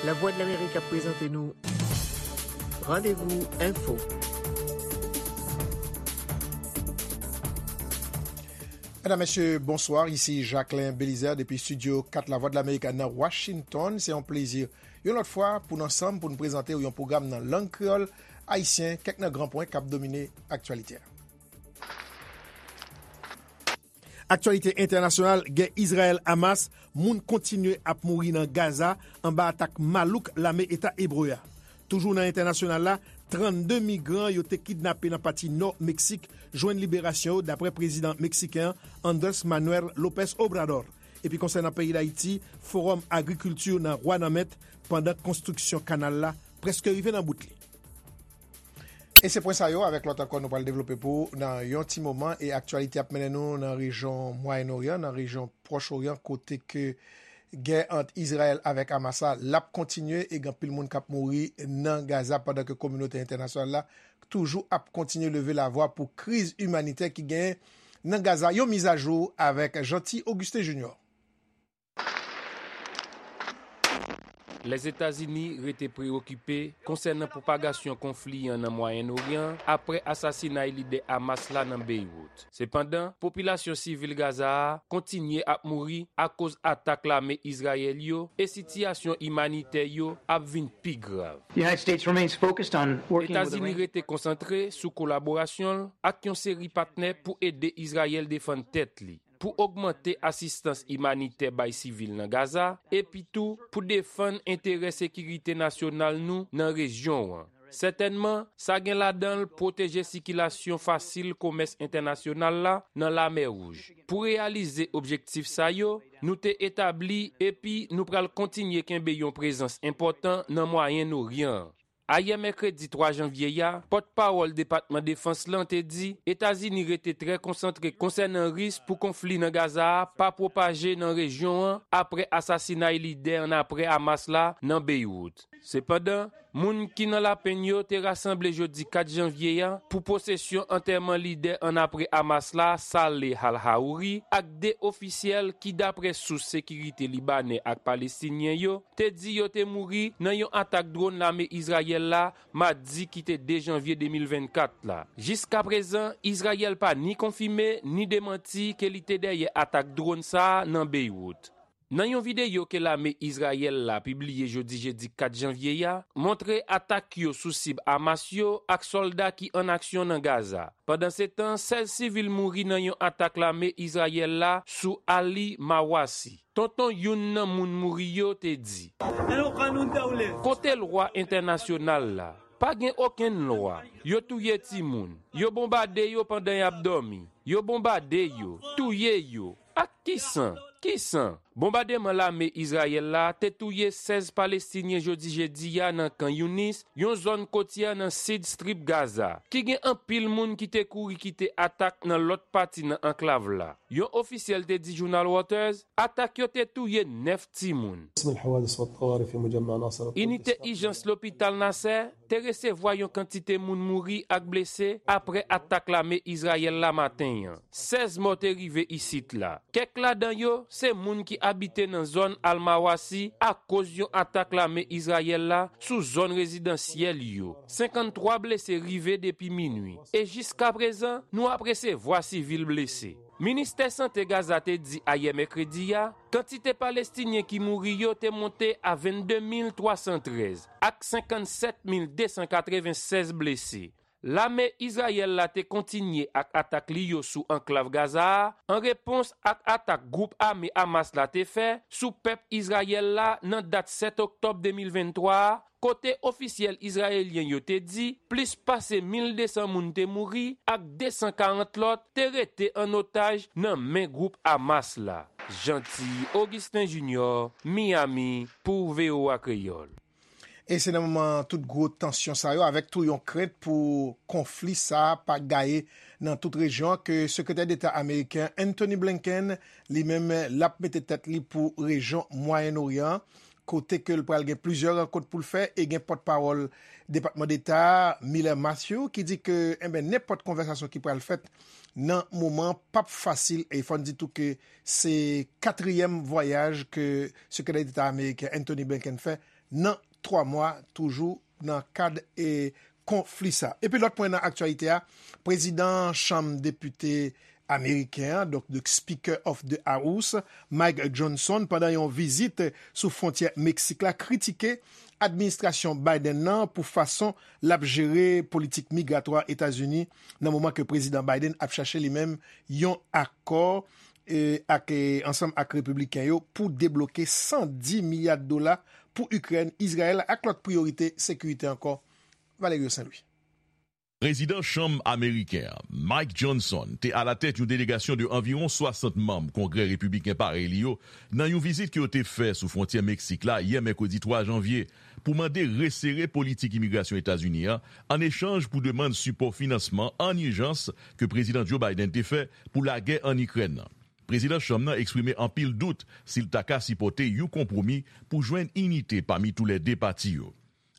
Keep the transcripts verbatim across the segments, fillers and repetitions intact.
Lavwadlamerik ap prezante nou Randevou Enfo. Medam, mesye, bonswa. Isi Jacquelin Belizaire depi estidyo kat Lavwadlamerik nan Washington. Se yon plezi yon lòt fwa pou n ansanm pou n prezante w yon pwogram nan lang kreyòl ayisyen, kèk nan gran pwen k ap domine aktyalite a. Aktyalite entènasyonal, gè Izrayèl-Hamas, moun kontinye ap mouri nan Gaza anba atak malouk lame Eta Ebre a. Toujou nan entènasyonal la, trannde migran yo te kidnape nan pati nò Meksik jwenn liberasyon yo, daprè prezidan meksiken an, Andrés Manuel López Obrador. Epi konsènan peyi Dayiti, Fowòm Agrikilti nan Wanament, pandan konstriksyon kanal la prèske rive nan bout li. E se pwen sa yo, avèk lòt ankò, nou pral devlope pou ou nan yon ti moman. E aktyalite ap mennen nou nan rejyon Mwayen Oryan, nan rejyon Pwòch Oryan, kote ke gè ant Izrayèl avèk Hamas la, l ap kontinye e gen anpil moun k ap mouri nan Gaza, pandan ke kominote entènasyonal la toujou ap kontinye leve lavwa pou kriz imanitè ki genyen nan Gaza. Yon mizajou avèk Jeanty Augustin Junior. Lèzetazini rete preyokipe konsènan pwopagasyon konfli an nan Mwayen Oryan apre asasinay lidè Hamas la nan Beywout. Sepandan, popilasyon sivil Gaza a kontinye ap mouri akoz atak lame Izrayèl yo e sitiyasyon imanitè yo ap vin pi grav. Etazini rete konsantre sou kolaborasyon l ak yon seri patnè pou ede Izrayèl defann tèt li, pou ogmante asistans imanitè bay sivil nan Gaza, epi tou pou defann enterè sekirite nasyonal nou nan rejyon an. Sètènman, sa gen ladan l pwoteje sikilasyon fasil komès entènasyonal la nan Lamè Wouj. Pou reyalize objektif sa yo, nou te etabli epi nou pral kontinye kenbe yon prezans enpòtan nan Mwayen Oryan an. Ayè mèkredi twa janvye a, pòtpawòl Depatman Defans lan te di Etazini rete trè konsantre konsènan risk pou konfli nan Gaza a pa pwopaje nan rejyon an apre asasinay lidè annapre Hamas la nan Beywout. Sepandan, moun ki nan lapenn yo te rasanble jodi kat janvye a pou pwosesyon antèman lidè annapre Hamas la, Saleh al-Haouri, ak de ofisyèl ki, dapre sous sekirite libanè ak palestinyen yo, te di yo te mouri nan yon atak dwòn lame Izrayèl la madi ki te de janvye de mil vennkat la. Jiskaprezan, Izrayèl pa ni konfime ni demanti ke li te dèyè atak dwòn sa a nan Beywout. Nan yon videyo ke lame Izrayèl la pibliye jodi jedi kat janvye a, montre atak yo sou sib Hamas yo ak sòlda ki an aksyon nan Gaza. Pandansetan, sèz sivil mouri nan yon atak lame Izrayèl la sou Ali Mawasi. Tonton youn nan moun mouri yo te di. Kote lwa entènasyonal la? Pa gen okenn lwa. Yo touye timoun. Yo bonbade yo pandan y ap dòmi. Yo bonbade yo. Touye yo. Ak ki san? Ki san? Bonbademan lame Izrayèl la te touye sèz Palestinyen jodi jedi a nan Kan Younis, yon zòn kotyè nan sid Strip Gaza, ki gen anpil moun ki te kouri kite atak nan lòt pati nan anklav la. Yon ofisyèl te di jounal Reuters, atak yo te touye nèf timoun. Inite ijans lopital Nasser te resevwa yon kantite moun mouri ak blese apre atak lame Izrayèl la maten an. Sèz mò te rive isit la. Kèk ladan yo se moun ki abite nan zòn Al-Mawasi akoz yon atak lame Izrayèl la sou zòn rezidansyèl yo. Senkanntwa blese rive depi minwi. E jiskaprezan, nou ap resevwa sivil blese. Ministè Sante Gaza te di ayè mèkredi a, kantite Palestinyen ki mouri yo te monte a vennde mil twa san trèz, ak senkannsèt mil de san katrevensèz blese. Lame Izrayèl la te kontinye ak atak li yo sou anklav Gaza a, an repons ak atak gwoup ame Hamas la te fè sou pèp Izrayèl la nan dat sèt oktòb de mil venntwa a, kote ofisyèl izrayelyen yo te di plis pase mil de san moun te mouri ak de san karant lòt te rete an otaj nan men gwoup Hamas la. Jeanty Augustin Junior, Miami, pou V O A Kreyòl. E se nan moman tout gwo tansyon sa yo, avèk tou yon krent pou konfli sa a pa gaye nan tout rejyon an, ke Sekretè Deta ameriken Antony Blinken, li menm, l ap mete tèt li pou rejyon Mwayen Oryan an, kote ke l pral gen plizyè rankont pou l fè, e gen pòtpawòl Depatman Deta a, Miller Matthew, ki di ke, enben, nenpòt konvèsasyon ki pral fèt nan moman an p ap fasil, e fò n di tou ke se katriyèm vwayaj ke Sekretè Deta ameriken Antony Blinken fè nan twa mwa, toujou nan kad e konfli sa. Epi lòt pwen nan aktyalite a, prezidan Chanm Depite ameriken an, donk the Speaker of the House, Mike Johnson, pandan yon vizit sou fwontyè Meksik la, kritike administrasyon Biden nan pou fason l ap jere politik migratwa Etazini nan moman ke prezidan Biden ap chache li menm yon akò e, ak, e, ansanm ak repibliken yo pou debloke san di milya dola pou Ikrèn, Izrayèl ak lòt priyorite sekirite ankò. Valerio Saint-Louis. Prezidan Chanm ameriken an, Mike Johnson, te alatèt yon delegasyon de anviwon swasant manm Kongrè repibliken parèy li yo nan yon vizit ke yo te fè sou fwontyè Meksik la yè mèkredi twa janvye pou mande resere politik imigrasyon Etazini an, an echanj pou demann sipò finansman an ijans ke Prezidan Joe Biden te fè pou lagè ann Ikrèn nan. Prezidan Chanm nan eksprime anpil dout si l ta ka sipòte yon konpwomi pou jwenn inite pami toulède pati yo.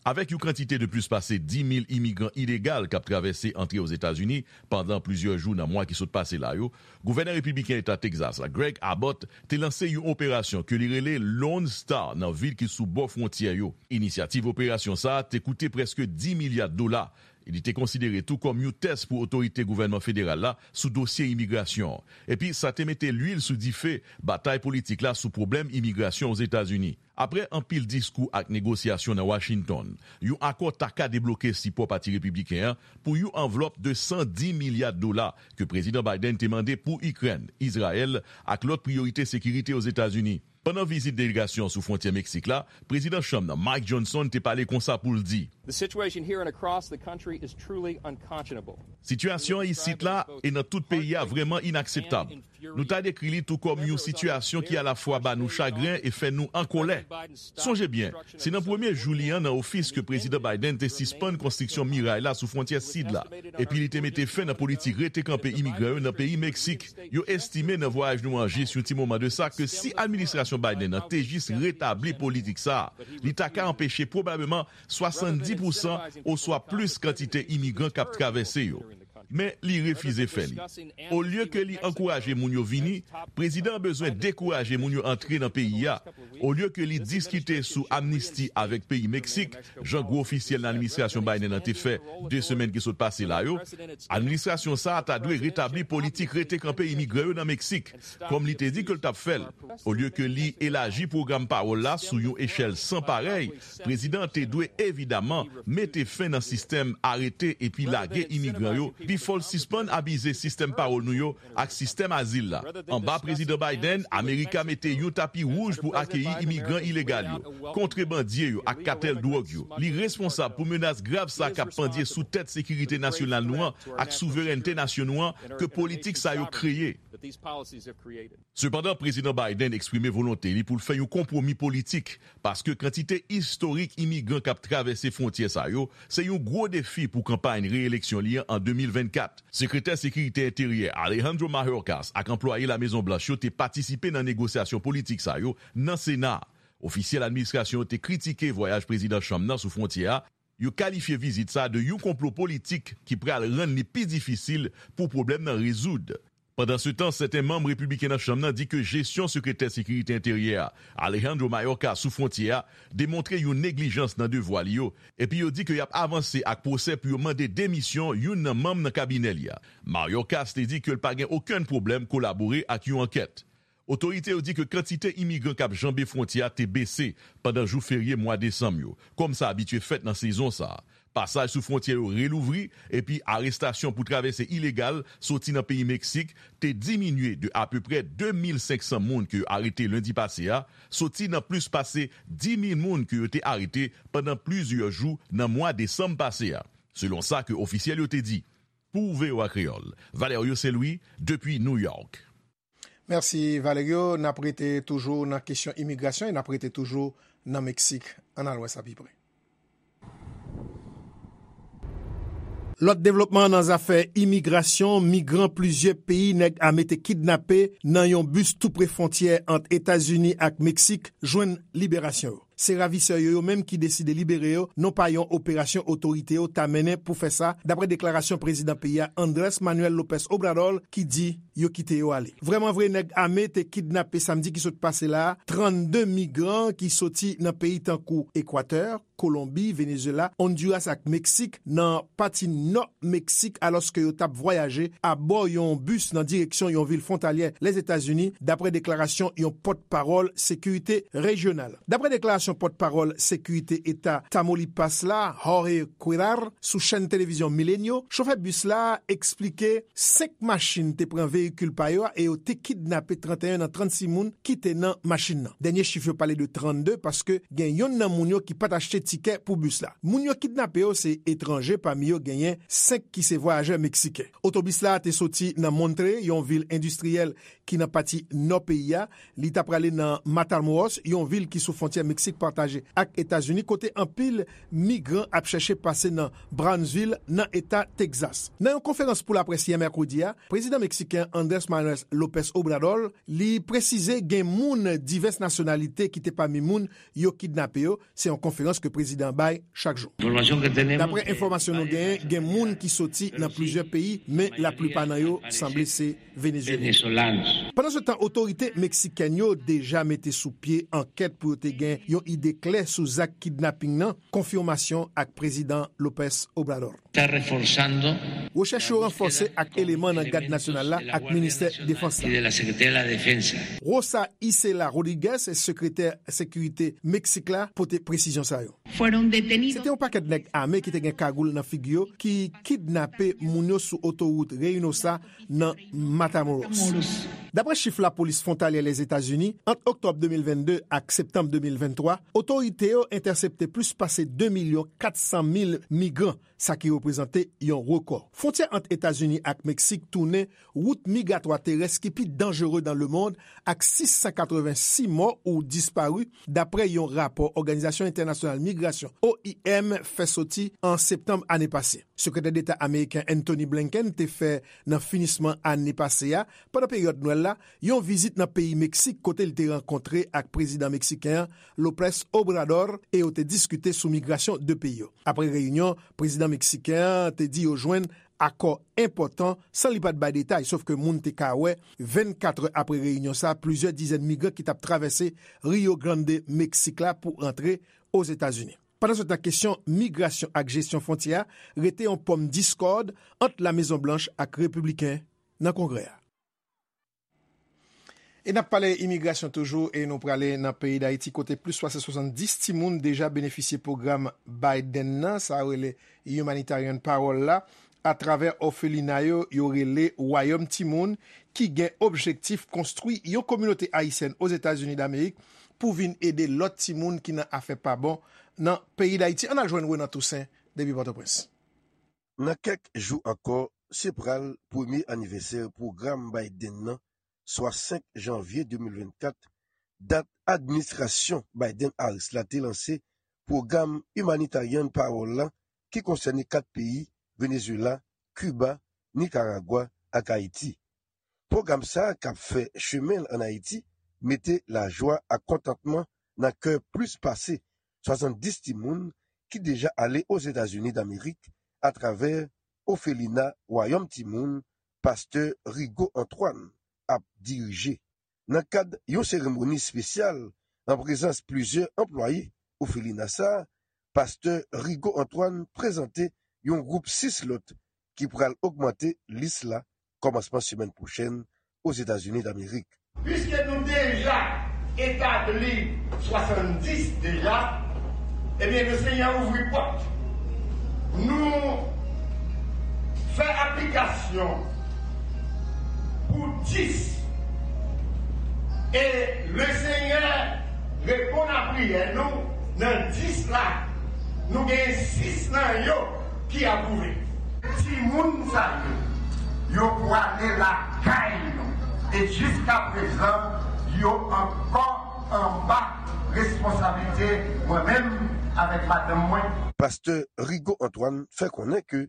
Avèk yon kantite de plis pase di mil imigran ilegal k ap travèse antre Ozetazini pandan plizyè jou nan mwa ki sot pase la yo, gouvènè repibliken Eta Tegzas la, Greg Abbott, te lanse yon operasyon ke li rele Lone Star nan vil ki sou bò fwontyè yo. Inisyativ operasyon sa a te koute prèske di milya dola. Li te konsidere tou kòm yon tès pou otorite gouvènman federal la sou dosye imigrasyon an. Epi sa te mete lwil sou dife batay politik la sou pwoblèm imigrasyon Ozetazini. Apre anpil diskou ak negosyasyon nan Washington, yon akò ta ka debloke sipò Pati Repibliken an pou yon anvlòp de san di milya dola ke Prezidan Biden te mande pou Ikrèn, Izrayèl ak lòt priyorite sekirite Ozetazini. Pandan vizit delegasyon sou fwontyè Meksik la, Prezidan Chanm nan Mike Johnson te pale konsa pou l di, The situation here and across the country is truly unconscionable. Sitiyasyon an isit la e nan tout peyi a vrèman inakseptab. Nou ta dekri li tou kòm yon sitiyasyon ki alafwa ba nou chagren e fè nou an kòlè. Sonje byen, se nan premye jou li an nan ofis ke Prezidan Biden te sispann konstriksyon miray la sou fwontyè sid la, epi li te mete fen nan politik rete kanpe imigran yo nan peyi Meksik. Yo estime nan vwayaj nou an jis yon ti moman de sa ke si administrasyon Biden nan te jis retabli politik sa a, li ta ka anpeche pwobableman swasanndis pousan oswa plis kantite imigran k ap travèse yo. Men li refize fè li. Olye ke li ankouraje moun yo vini, prezidan an bezwen dekouraje moun yo antre nan peyi a. Olye ke li diskite sou amnisti avèk peyi Meksik, jan gwo ofisyèl nan administrasyon Biden nan te fè de semèn ki sot pase la yo, administrasyon sa a ta dwe retabli politik rete kanpe imigran yo nan Meksik. Kòm li te di ke l t ap fè l. Olye ke li elaji pwogram pawòl la sou yon echèl san parèy, prezidan an te dwe evidaman mete fen nan sistèm arete epi lage imigran yo, pifò l sispann abize sistèm pawòl nou yo ak sistèm azil la. Anba Prezidan Biden, Amerika mete yon tapi wouj pou akeyi imigran ilegal yo, kontrebandye yo ak katèl dwòg yo. Li responsab pou menas grav sa k ap pandye sou tèt sekirite nasyonal nou an ak souverènte nasyon nou an ke politik sa yo kreye. Sepandan, Prezidan Biden eksprime volonte li pou l fè yon konpwomi politik, paske kantite istorik imigran k ap travèse fwontyè sa yo se yon gwo defi pou kanpay reyeleksyon li an an de mil vennkat. Sekretè Sekirite Enteryè Alejandro Mayorkas ak anplwaye Lamezon Blanch yo te patisipe nan negosyasyon politik sa yo nan Sena. Ofisyèl administrasyon yo te kritike vwayaj Prezidan Trump nan sou fwontyè a, yo kalifye vizit sa a de yon konplo politik ki pral rann li pi difisil pou pwoblèm nan rezoud. Pandansetan, sèten manm repibliken nan Chanm nan di ke jesyon Sekretè Sekirite Enteryè a, Alejandro Mayorkas, sou fwontyè a demontre yon neglijans nan devwa li yo, epi yo di ke y ap avanse ak pwosè pou yo mande demisyon youn nan manm nan kabinè li a. Mayorkas te di ke l pa gen okenn pwoblèm kolabore ak yon ankèt. Otorite yo di ke kantite imigran k ap janbe fwontyè a te bese pandan jou ferye mwa desanm yo, kòm sa abitye fèt nan sezon sa a. Pasaj sou fwontyè yo relouvri, epi arestasyon pou travèse ilegal soti nan peyi Meksik te diminye de apeprè de mil senk san moun ke yo arete lendi pase a, soti nan plis pase di mil moun ke yo te arete pandan plizyè jou nan mwa desanm pase a, selon sa ke ofisyèl yo te di. Pou V O A Kreyòl, Valerio Saint-Louis, depi New York. Mèsi, Valerio. N ap rete toujou nan kesyon imigrasyon e n ap rete toujou nan Meksik. Ann al wè sa pi pre. Lòt devlopman nan zafè imigrasyon, migran plizyè peyi nèg ame te kidnape nan yon bis tou pre fwontyè ant Etazini ak Meksik jwenn liberasyon yo. Se ravisè yo, yo menm ki deside libere yo, non pa yon operasyon otorite yo ta mennen pou fè sa, dapre deklarasyon prezidan peyi a, Andrés Manuel López Obrador, ki di, yo kite yo ale. Vrèmanvre, nèg ame te kidnape samdi ki sot pase la a trannde migran ki soti nan peyi tankou Ekwatè, Kolonbi, Venezuela, Honduras ak Meksik nan pati nò Meksik, alòske yo t ap vwayaje abò yon bis nan direksyon yon vil fwontalyè Lèzetazini, dapre deklarasyon yon pòtpawòl sekirite rejyonal. Dapre deklarasyon pòtpawòl sekirite eta Tamaulipas la, Jorge Cuellar, sou chèn televizyon Milenio, chofè bis la eksplike senk machin te pran veyikil pa yo a e yo te kidnape trannteyen nan trannsis moun ki te nan machin nan. Dènye chif yo pale de trannde, paske gen yonn nan moun yo ki pa t achte tikè pou bis la. Moun yo kidnape yo se etranje, pami yo genyen senk ki se vwayajè meksiken. Otobis la te soti nan Monterrey, yon vil endistriyèl ki nan pati nò peyi a. Li ta prale nan Matamoros, yon vil ki sou fwontyè Meksik pataje ak Etazini, kote anpil migran ap chèche pase nan Brownsville, nan eta Texas. Nan yon konferans pou laprès yè mèkredi a, prezidan meksiken Andrés Manuel López Obrador, li presize gen moun divès nasyonalite ki te pami moun yo kidnape yo. Se yon konferans ke prezidan bay chak jou. Dapre enfòmasyon nou genyen, gen moun ki soti nan plizyè peyi, men laplipa nan yo sanble se Venezuela. Pandansetan, otorite meksikèn yo deja mete sou pye ankèt pou yo te gen yon ide klè sou zak kidnaping nan, konfimasyon ak prezidan López Obrador. Rechèch yo ranfòse ak eleman nan Gad Nasyonal la ak Ministè Defans la. Rosa Isela Rodriguez, sekretè sekirite Meksik la, pote presizyon sa yo. Se te yon pakèt nèg ame ki te gen kagoul nan figi yo ki kidnape moun yo sou otowout Reynosa nan Matamoros. Dapre chif lapolis fwontalyè Lèzetazini, ant oktòb de mil vennde ak septanm de mil venntwa, otorite yo entèsepte plis pase de milyon kat san mil migran, sa ki reprezante yon rekò. Fwontyè ant Etazini ak Meksik tounen wout migratwa terès ki pi danjere nan lemonn, ak sis san katrevensis mò ou dispari, dapre yon rapò Òganizasyon Entènasyonal Migrasyon, O I M, fè soti an septanm ane pase. Sekretè Deta ameriken Antony Blinken te fè nan finisman ane pase a, pandan peryòd Nwèl la, yon vizit nan peyi Meksik kote li te rankontre ak prezidan meksiken an, López Obrador, e yo te diskite sou migrasyon de peyi yo. Apre reyinyon, prezidan meksiken an te di yo jwenn akò enpòtan san li pa t bay detay, sof ke moun te ka wè vennkat è apre reyinyon sa a, plizyè dizèn migran ki t ap travèse Rio Grande, Meksik la pou rantre Ozetazini. Pandansetan, kesyon migrasyon ak jesyon fwontyè a rete yon pòm diskòd ant La Mezon Blanch ak repibliken nan Kongrè a. E n ap pale imigrasyon toujou e nou prale nan peyi Dayiti kote plis pase swasanndis timoun deja benefisye pwogram Biden nan, sa yo rele Humanitarian Parole la, atravè òfelina yo, yo rele Wayòm Timoun, ki gen objektif konstwi yon kominote ayisyèn Ozetazini Damerik pou vin ede lòt timoun ki nan afè pa bon nan peyi Dayiti. Ann al jwenn Renan Toussaint depi Pòtoprens. Nan kèk jou ankò, se pral premye anivèsè pwogram Biden nan, swa senk janvye de mil vennkat, dat administrasyon Biden-Harris la te lanse pwogram Humanitarian Parole la, ki konsène kat peyi, Venezuela, Kiba, Nikaragwa ak Ayiti. Pwogram sa a k ap fè chemen l ann Ayiti mete lajwa ak kontantman nan kè plis pase swasanndis timoun ki deja ale Ozetazini Damerik atravè òfelina Wayòm Timoun, pastè Rigaud Antoine ap dirije. Nan kad yon seremoni espesyal an prezans plizyè anplwaye òfelina sa a, pastè Rigaud Antoine prezante yon gwoup sis lòt ki pral ogmante lis la kòmansman semèn pwochèn Ozetazini Damerik. Piske nou deja etabli swasanndis deja, ebyen, Lesenyè ouvri pòt. Nou fè aplikasyon pou dis. E Lesenyè reponn a priyè nou, nan dis la, nou gen sis nan yo ki apwouve. Timoun sa yo, yo pwale lakay nou. E jiskaprezan, yo ankò anba responsablite mwen menm avèk madanm mwen. Pastè Rigaud Antoine fè konnen ke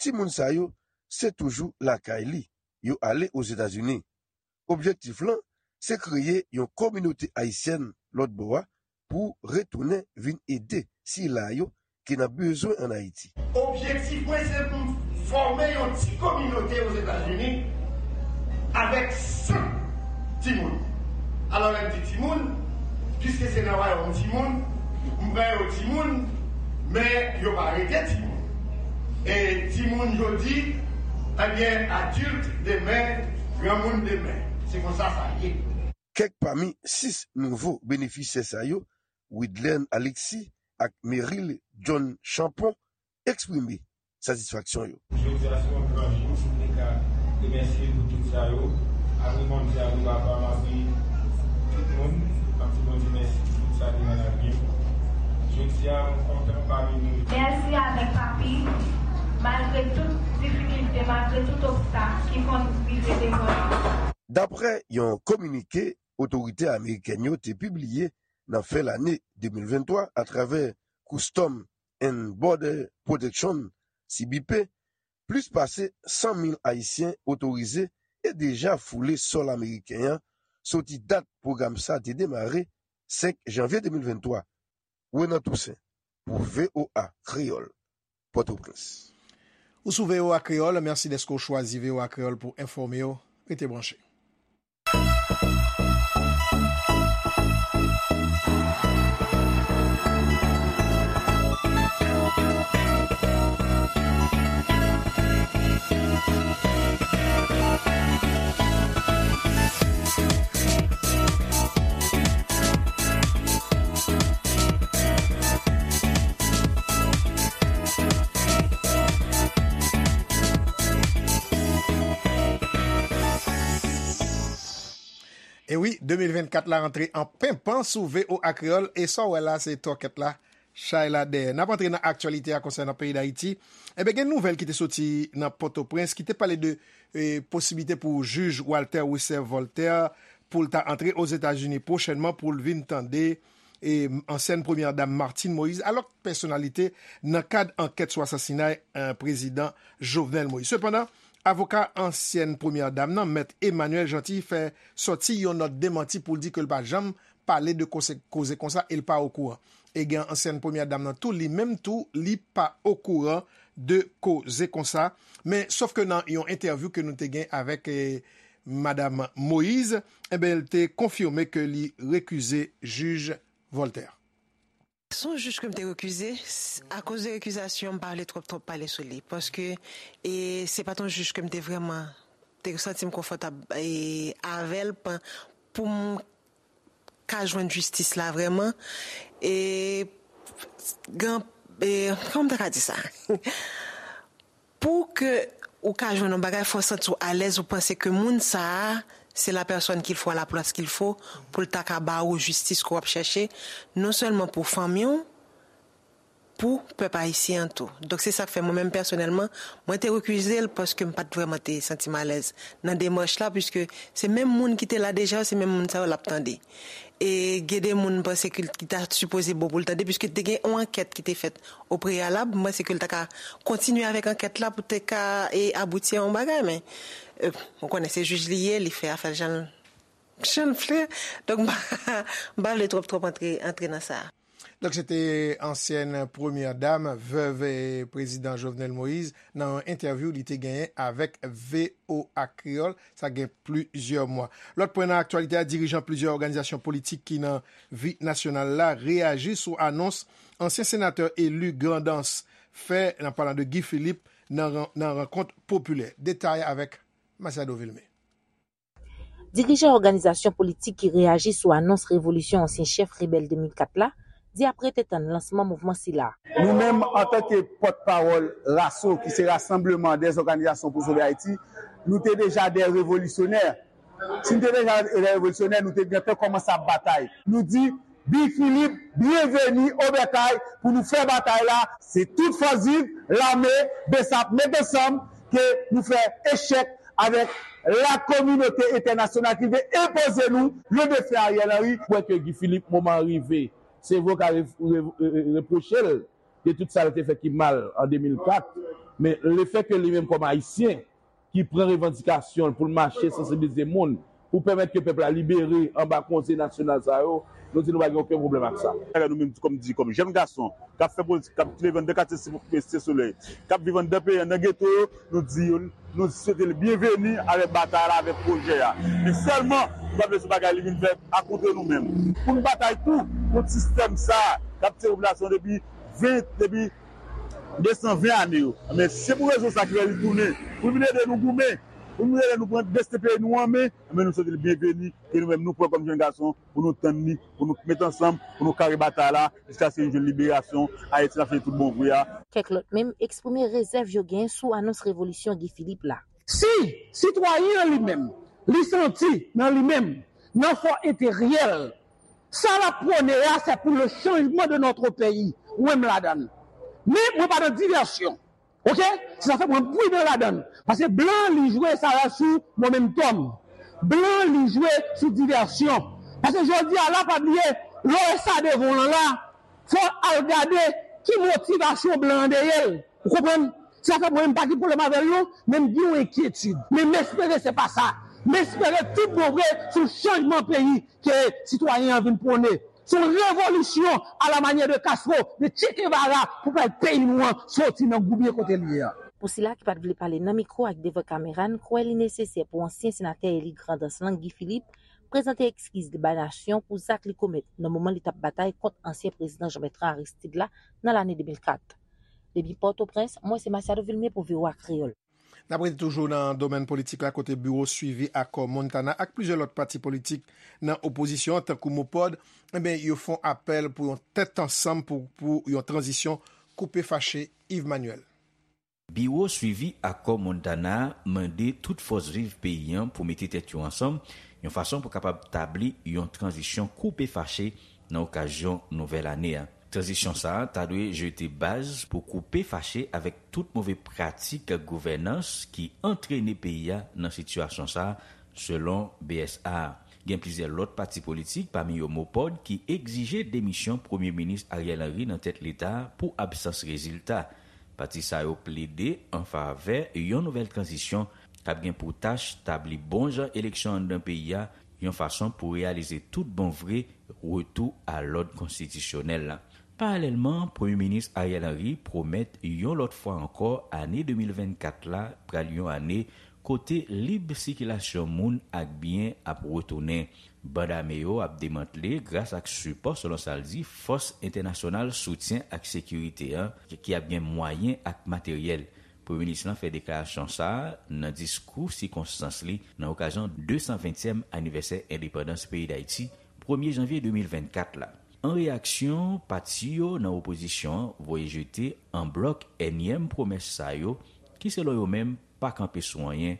timoun sa yo se toujou lakay li, yo ale Ozetazini. Objektif lan, se kreye yon kominote ayisyèn lòt bò a pou retounen vin ede sila yo ki nan bezwen ann Ayiti. Objektif mwen, se pou m fòme yon ti kominote Ozetazini Avèk san timoun. Alò, lè m di timoun, piske se nan wayòm timoun, m pran yo timoun, men yo pa rete timoun. E timoun jodi, ebyen, adilt demen, granmoun demen. Se konsa sa ye. Kèk pami sis nouvo benefisyè sa yo, Widlen Alexis ak Meryl John Champon, eksprime satisfaksyon yo. Jodi a se yon gran jou, si m te ka remèsye nou tout sa yo, apre Bondye, apre papa m, apre tout moun, m ap di Bondye mèsi pou tout sa ki nan lavi m. Jodi a, mwen kontan pami nou. Mèsi avèk papi, malgre tout difikilte, malgre tout obstak ki konn rive devan nou. Daprè yon kominike otorite amerikèn yo te pibliye nan fen lane de mil venntwa atravè Custom and Border Protection, C B P, plis pase san mil Ayisyen otorize e deja foule sòl ameriken an soti dat pwogram sa te demare, senk janvye de mil venntwa. Renan Toussaint, pou V O A Kreyòl, Pòtoprens. Ou sou V O A Kreyòl, mèsi dèske w chwazi V O A Kreyòl pou enfòme w. Rete branche. E wi, de mil vennkat la antre an penpan sou V O A Kreyòl, e sa w wè la, se twòkèt la, chay la dèyè. N ap antre nan aktyalite a konsènan peyi Dayiti. Enben, gen nouvèl ki te soti nan Pòtoprens, ki te pale de, e, posiblite pou jij Walter Wesser Voltaire pou l ta antre Ozetazini pwochènman pou l vin tande e, ansyèn premyè dam Martine Moïse, ak lòt pèsonalite nan kad ankèt sou asasinay, e, prezidan Jovenel Moïse. Sepandan, avoka ansyèn premyè dam nan, mèt Emmanuel Jeanty, fè sòti yon nòt demanti pou l di ke l pa janm pale de koze, koze konsa e l pa okouran. E gen ansyèn premyè dam nan tou, li menm tou, li pa okouran de koze konsa. Men, sòf ke nan yon entèvyou ke nou te gen avèk, e, Madam Moïse, enben, l te konfime ke li rekize jij Voltaire. Se yon jij ke m te rekize, s-, akoz de rekizasyon, m pa vle twòp, twòp pale sou li. Paske, e, se pa t yon jij ke m te vrèman, te santi m konfòtab, e, avè l, pa, pou m ka jwenn jistis la vrèman. E, gen, e, kòman m ta ka di sa? Pou ke ou ka jwenn yon bagay, fò w santi w alèz, ou panse ke moun sa a, c'est la personne qu'il faut à la place qu'il faut, pou l ta ka ba ou jistis ke w ap chèche, non sèlman pou fanmi w, pou pèp ayisyen an tou. Donk, se sa k fè mwen menm pèsonèlman, mwen te rekize l paske m pa t vrèman te santi m alèz nan demach la, piske se menm moun ki te la deja yo, se menm moun sa yo l ap tande. E gen de moun m panse ke l, ki ta sipoze bon pou l tande, piske te gen yon ankèt ki te fèt o preyalab, m panse ke l ta ka kontinye avèk ankèt la pou te ka, e, abouti a yon bagay, men, e, ou konnen se jij li ye, li fè afè l jan l, jan l vle. Donk, m pa, m pa vle twòp, twòp antre, antre nan sa. Donk, se te ansyèn premyè dam, vèv, e, prezidan Jovenel Moïse, nan yon entèvyou li te genyen avèk V O A Kreyòl, sa gen plizyè mwa. Lòt pwen nan aktyalite a, dirijan plizyè òganizasyon politik ki nan vi nasyonal la reyaji sou anons ansyen senatè eli Grandans fè, nan palan de Guy Philippe, nan ran-, nan rankont popilè. Detay avèk Masiado Vilmé. Dirijan òganizasyon politik ki reyaji sou anons revolisyon ansyen chèf rebèl de mil kat la di ap rete tann lansman mouvman sila. Nou menm, antanke pòtpawòl raso, ki se Rassemblement des Organisations pour Sauver Haïti, nou te deja de revolisyonè. Si n te deja de revolisyonè, nou te gentan kòmanse ap batay. Nou di, Guy Philippe, byenveni o bèkay pou nou fè batay la. Se tout fòs viv, lame, BSAP, met ansanm ke nou fè echèk avèk lakominote entènasyonal ki vle enpoze nou le defen Ariel Henry. Kwè ke Guy Philippe, moman an rive. Se vre w ka re-, re-, re-, repwoche l de tout sa l te fè ki mal an de mil kat, men lefètke li menm kòm Ayisyen ki pran revandikasyon l pou l mache sansibilize moun, pou pèmèt ke pèp la libere anba konsèy nasyonal sa yo, nou di nou pa gen okenn pwoblèm ak sa. Nou menm, kòm di, kòm jèn gason k ap fè politik, k ap leve anndan katye Site Solèy, k ap viv anndan peyi an, nan geto yo, nou di yo, nou swete l byenveni avèk batay la, avèk pwojè a. Men sèlman, nou pa vle se bagay li vin fè akontre nou menm. Pou n batay tou kont sistèm sa a k ap tiye popilasyon depi ven, depi de san ven ane yo. Men se pou rezon sa ki fè li tounen, pou vin ede nou goumen, pou vin ede nou pran desten peyi nou an men, men nou swete l byenveni, ke nou menm nou pran kòm jèn gason, pou nou tann li, pou nou met ansanm, pou nou kare batay la, jiskaske nou jwenn liberasyon Ayiti nan fini tout bon vre a. Kèk lòt menm eksprime rezèv yo genyen sou anons revolisyon Guy Philippe la. Si sitwayen an li menm, li santi nan li menm, nan fò enteryè l, sa l ap pwone a, se pou le changement de notre pays, mwen m ladan l. Men mwen pa nan divèsyon. Oke? Se sa fè mwen pridan ladan l. Paske blan li jwe sa la sou momentum. Blan li jwe sou divèsyon. Paske jodi a la, pa bliye, lè w wè sa devan w lan la, fò w al gade ki motivasyon blan an dèyè l. Ou konprann? Se sa fè mwen m pa gen pwoblèm avè l non, men m gen yon enkyetid. Men m espere se pa sa. M espere tout bon vre se yon chanjman peyi ke sitwayen an vin pwone. Se yon revolisyon a la manyè de Castro, de Che Guevara pou pèp peyi nou an soti nan goubyen kote l ye a. Pou sila ki pa t vle pale nan mikwo ak devan kamera, n kwè li nesesè pou ansyen senatè eli Grandans lan, Guy Philippe, prezante ekskiz li bay nasyon pou zak li komèt nan moman li t ap batay kont ansyen prezidan Jean Bertrand Aristide la nan lane de mil kat. Depi Pòtoprens, mwen se Masiado Vilmé pou V O A Kreyòl. N ap rete toujou nan domèn politik la, kote biwo swivi akò Montana ak plizyè lòt pati politik nan opozisyon an, tankou MOPOD, enben, yo fè yon apèl pou yon tèt ansanm pou, pou yon tranzisyon koupe fache. Yves Manuel. Biwo swivi akò Montana a mande tout fòs viv peyi an pou mete tèt yo ansanm, yon fason pou kapab tabli yon tranzisyon koupe fache nan okazyon nouvèl ane a. Tranzisyon sa a ta dwe jete baz pou koupe fache avèk tout move pratik gouvènans ki antrene peyi a nan sitiyasyon sa a, selon B S A. Gen plizyè lòt pati politik, pami yo MOPOD, ki egzije demisyon Premye Minis Ariel Henry nan tèt Leta a pou absans rezilta. Pati sa yo plede an favè yon nouvèl tranzisyon k ap gen pou tach tabli bon jan eleksyon anndan peyi a, yon fason pou reyalize tout bon vre retou a lòd konstitisyonèl la. Paralèlman, Premye Minis Ariel Henry pwomèt yon lòt fwa ankò ane de mil vennkat la pral yon ane kote lib sikilasyon moun ak byen ap retounen. Band ame yo ap demantle gras ak sipò, selon sa l di, fòs entènasyonal soutyen ak sekirite an, ki ap gen mwayen ak materyèl. Premye minis lan fè deklarasyon sa a nan diskou sikonstans li nan okazyon de san ventyèm anivèsè endepandans peyi Dayiti, premye janvye de mil vennkat la. An reyaksyon, pati yo nan opozisyon an voye jete an blòk ènyèm pwomès sa yo, ki selon yo menm pa kanpe sou anyen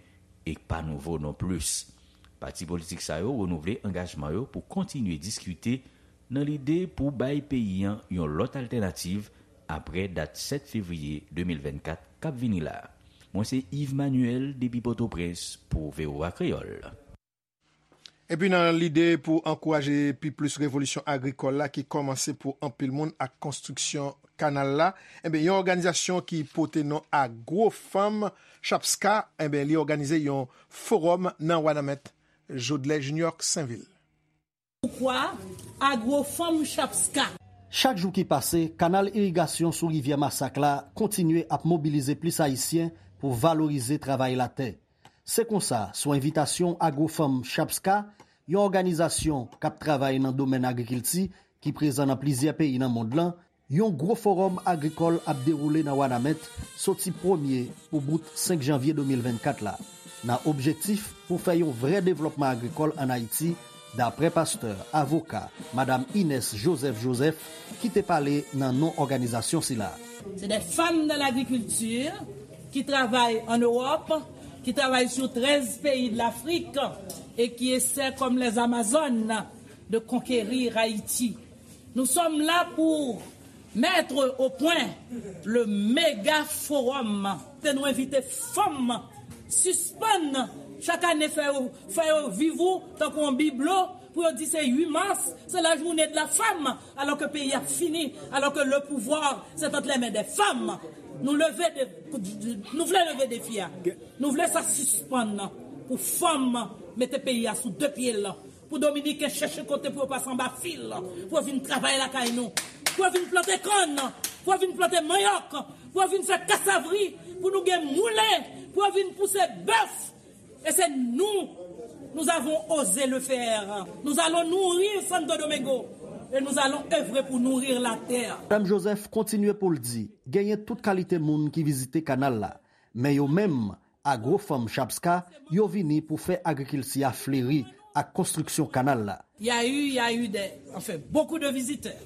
e pa nouvo non plis. Pati politik sa yo renouvle angajman yo pou kontinye diskite nan lide pou bay peyi an yon lòt altènativ apre dat sèt fevriye de mil vennkat k ap vini la a. Mwen se Yves Manuel depi Pòtoprens pou V O A Kreyòl. Epi nan lide pou ankouraje pi plis revolisyon agrikòl la ki kòmanse pou anpil moun ak konstriksyon kanal la, enben, yon òganizasyon ki pote non Agro Fanm Chapska, enben, li òganize yon fowòm nan Wanament. Jodlè Junior Sainvil. Poukwa Agro Fanm Chapska? Chak jou ki pase, kanal irigasyon sou rivyè Masak la kontinye ap mobilize plis Ayisyen pou valorize travay latè. Se konsa, sou envitasyon Agro Fanm Chapska, yon òganizasyon k ap travay nan domèn agrikilti ki prezan nan plizyè peyi nan mond lan, yon gwo fowòm agrikòl ap dewoule nan Wanament soti premye pou bout senk janvye de mil vennkat la, nan objektif pou fè yon vrè devlòpman agrikòl ann Ayiti, daprè pastè, avoka, madam Ines Joseph Joseph, ki te pale nan non òganizasyon sila. C'est des femmes de l'agriculture qui travaillent en Europe, qui travaillent sur treize pays de l'Afrique et qui essaient, comme les Amazones, de conquérir Haïti. Nous sommes là pour mettre au point le méga forum. Te nou envite fanm sispann chak ane fè yo, fè yo viv ou tankou yon biblo pou yo di se uit mas, se la journée de la femme, alò ke peyi a fini, alò ke le pouvoir c'est entre les mains des femmes. Nou leve de, nou vle leve defi a. Nou vle sa sispann pou fanm Mete peyi a sou de pye l, pou Dominiken chèche kote pou yo pase anba fil, pou yo vin travay lakay nou, pou yo vin plante kann, pou yo vin plante manyòk, pou yo vin fè kasavri, pou nou gen moulen, pou yo vin pouse bèf. E se nou, nous avons osé le faire. Nous allons nourrir Santo Domingo et nous allons œuvrer pour nourrir la terre. Madanm Joseph kontinye pou l di, genyen tout kalite moun ki vizite kanal la, men yo menm, Agro Farm Chapska, yo vini pou fè agrikilti a fleri ak konstriksyon kanal la. Il y a eu, il y a eu des, enfin, beaucoup de visiteurs.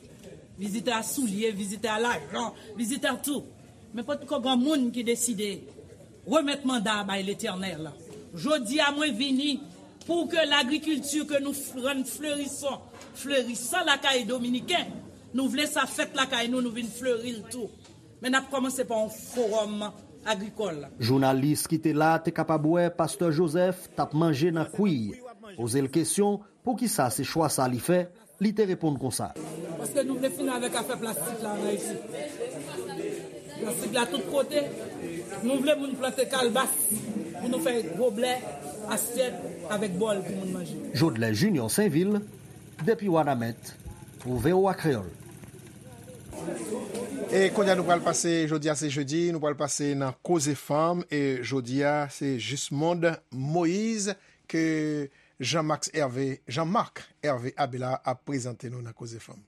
Visiteurs à souliers, visiteurs à l'argent, visiteurs à tout. Men potko gen moun ki deside remèt manda a bay Letènèl. Jodi a mwen vini pou ke lagrikilti ke nou f- rann flerisan, flerisan lakay Dominiken. Nou vle sa fèt lakay nou, nou vin fleri l tou. Men n ap kòmanse pa yon fowòm agrikòl. Jounalis ki te la te kapab wè Pastè Joseph t ap manje nan kwi. Poze l kesyon, poukisa se chwa sa li fè, li te reponn konsa. Paske nou vle fini avèk afè plastik la nan Ayiti. Plastik la tout kote. Nou vle moun plante kalbas pou nou fè goblè, asyèt avèk bòl pou moun manje. Jodlè Junior Sainvil, depi Wanament, pou V O A Kreyòl. E kounye a nou pral pase, jodi a se jedi, nou pral pase nan Koze Fanm, e jodi a se Jismond Moïse ke Jean-Max Hervé, Jean-Marc Hervé Abelard ap prezante nou nan Koze Fanm.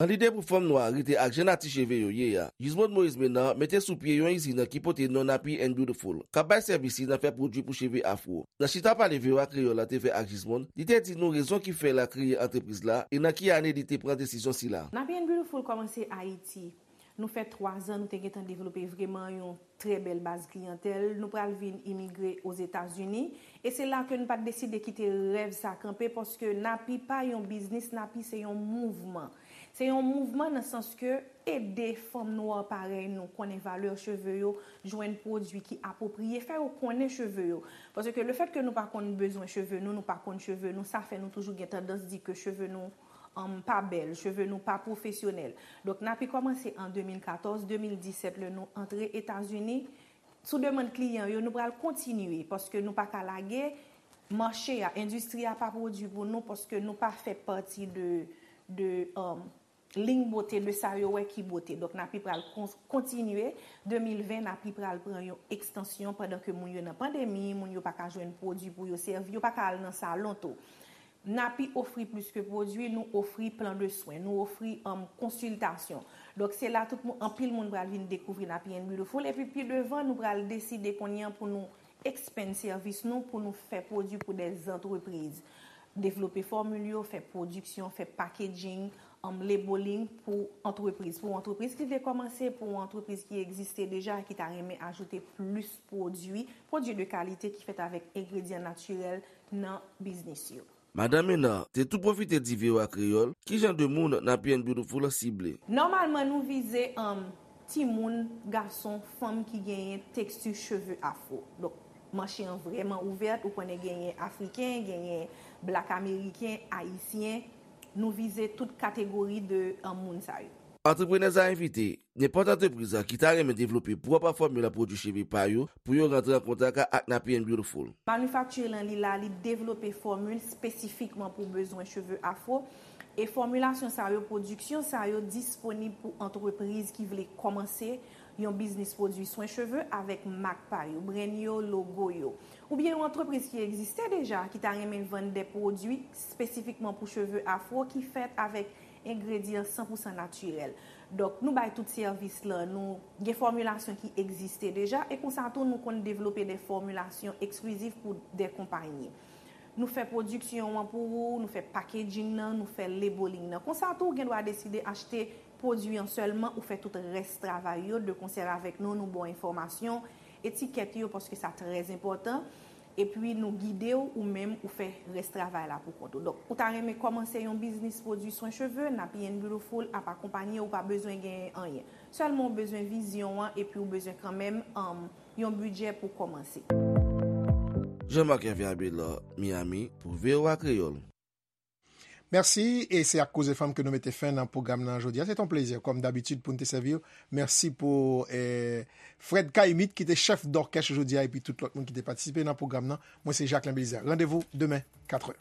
Nan lide pou fanm nwa rete ak jan nati cheve yo ye a, Jismond Moïse Menard mete sou pye yon izin ki pote non Nappy and Beautiful, k ap bay sèvis li nan fè pwodui pou cheve afwo. Nan chita pale V O A Kreyòl la te fè ak Jismond, li te di nou rezon ki fè l a kreye antrepriz la e nan ki ane li te pran desizyon sila. Nappy and Beautiful kòmanse Ayiti. Nou fè twa zan nou te gentan devlope vrèman yon trè bèl baz kliyantèl. Nou pral vin imigre Ozetazini. E se la ke n pa t deside kite rèv sa kanpe, paske Nappy pa yon biznis, Nappy se yon mouvman. Se yon mouvman nan sans ke ede fanm nwa parèy nou konnen valè cheve yo, jwenn pwodui ki apwopriye, fè yo konnen cheve yo. Paske lefèt ke nou pa konn bezwen cheve nou, nou pa konn cheve nou, sa fè nou toujou gen tandans di ke cheve nou um, pa bèl, cheve nou pa pwofesyonèl. Donk, Nappy kòmanse an de mil katòz, de mil disèt, lè nou antre Etazini. Sou demann kliyan yo, nou pral kontinye, paske nou pa ka lage mache a, endistri a pa pwodui pou nou, paske nou pa fè pati de, de um, liy bote, de sa yo wè ki bote. Donk, Nappy pral kon- kontinye. De mil ven, Nappy pral pran yon ekstansyon pandan ke moun yo nan pandemi, moun yo pa ka jwenn pwodui pou yo sèvi, yo pa ka al nan salon tou. Nappy ofri plis ke pwodui, nou ofri plan de swen, nou ofri um, konsiltasyon. Donk, se la tout moun, anpil moun pral vin dekouvri Nappy and Beautiful. Epi pi devan, nou pral deside kounye a pou nou expand sèvis nou, pou nou fè pwodui pou de antrepriz. Devlope fòmil yo, fè pwodiksyon, fè packaging, um, labeling pou antrepriz. Pou antrepriz ki vle kòmanse, pou antrepriz ki egziste deja, ki ta renmen ajoute plis pwodui, pwodui de kalite ki fèt avèk engredyan natirèl nan biznis yo. Madanm Menard te tou pwofite di V O A Kreyòl ki jan de moun Nappy and Beautiful sible. Nòmalman, nou vize um, timoun, gason, fanm ki genyen teksti cheve afwo. Donk, mache an vrèman ouvèt, ou konnen genyen Afriken, genyen Black Ameriken, Ayisyen, nou vize tout kategori de um, moun sa yo. Antreprenèz la envite nenpòt antrepriz ki ta renmen devlope pwòp fòmil pwodui cheve pa yo pou yo rantre an kontak ak Nappy and Beautiful. Manifakti lan li la, li devlope fòmil espesifikman pou bezwen cheve afwo. E fòmilasyon sa yo, pwodiksyon sa yo disponib pou antrepriz ki vle kòmanse yon biznis pwodui swen cheve avèk mak pa yo, brand yo, logo yo. Oubyen yon antrepriz ki egziste deja, ki ta renmen vann de pwodui espesifikman pou cheve afwo ki fèt avèk engredyan san pou san natirèl. Donk, nou bay tout sèvis lan, nou gen fòmilasyon ki egziste deja, e konsa tou nou konn devlope de fòmilasyon eksklizif pou de konpayi. Nou fè pwodiksyon an pou ou, nou fè packaging nan, nou fè labeling nan. Konsa tou, ou gen dwa deside achte pwodui an sèlman, ou fè tout rès travay yo, de konsè avèk nou, nou ba w enfòmasyon, etikèt yo, paske sa trè enpòtan. Epi nou gide w, ou menm, ou fè rès travay la pou kont ou. Donk, ou ta renmen kòmanse yon biznis pwodui swen cheve, Nappy and Beautiful ap akonpanye w, ou pa bezwen genyen anyen. Sèlman ou bezwen vizyon an, epi ou bezwen kanmenm um, yon bidjè pou kòmanse. Jean-Marc Hervé Abelard, Miami, pou V O A Kreyòl. Mèsi, e se ak Koze Fanm ke nou mete fen nan pwogram nan jodi a. Se te yon plezi, kòm dabitid, pou n te sèvi w. Mèsi pou eh, Fred Caïmite, ki te chèf dòkès jodi a, epi tout lòt moun ki te patisipe nan pwogram nan. Mwen, se Jacquelin Belizaire. Randevou demen, katrè.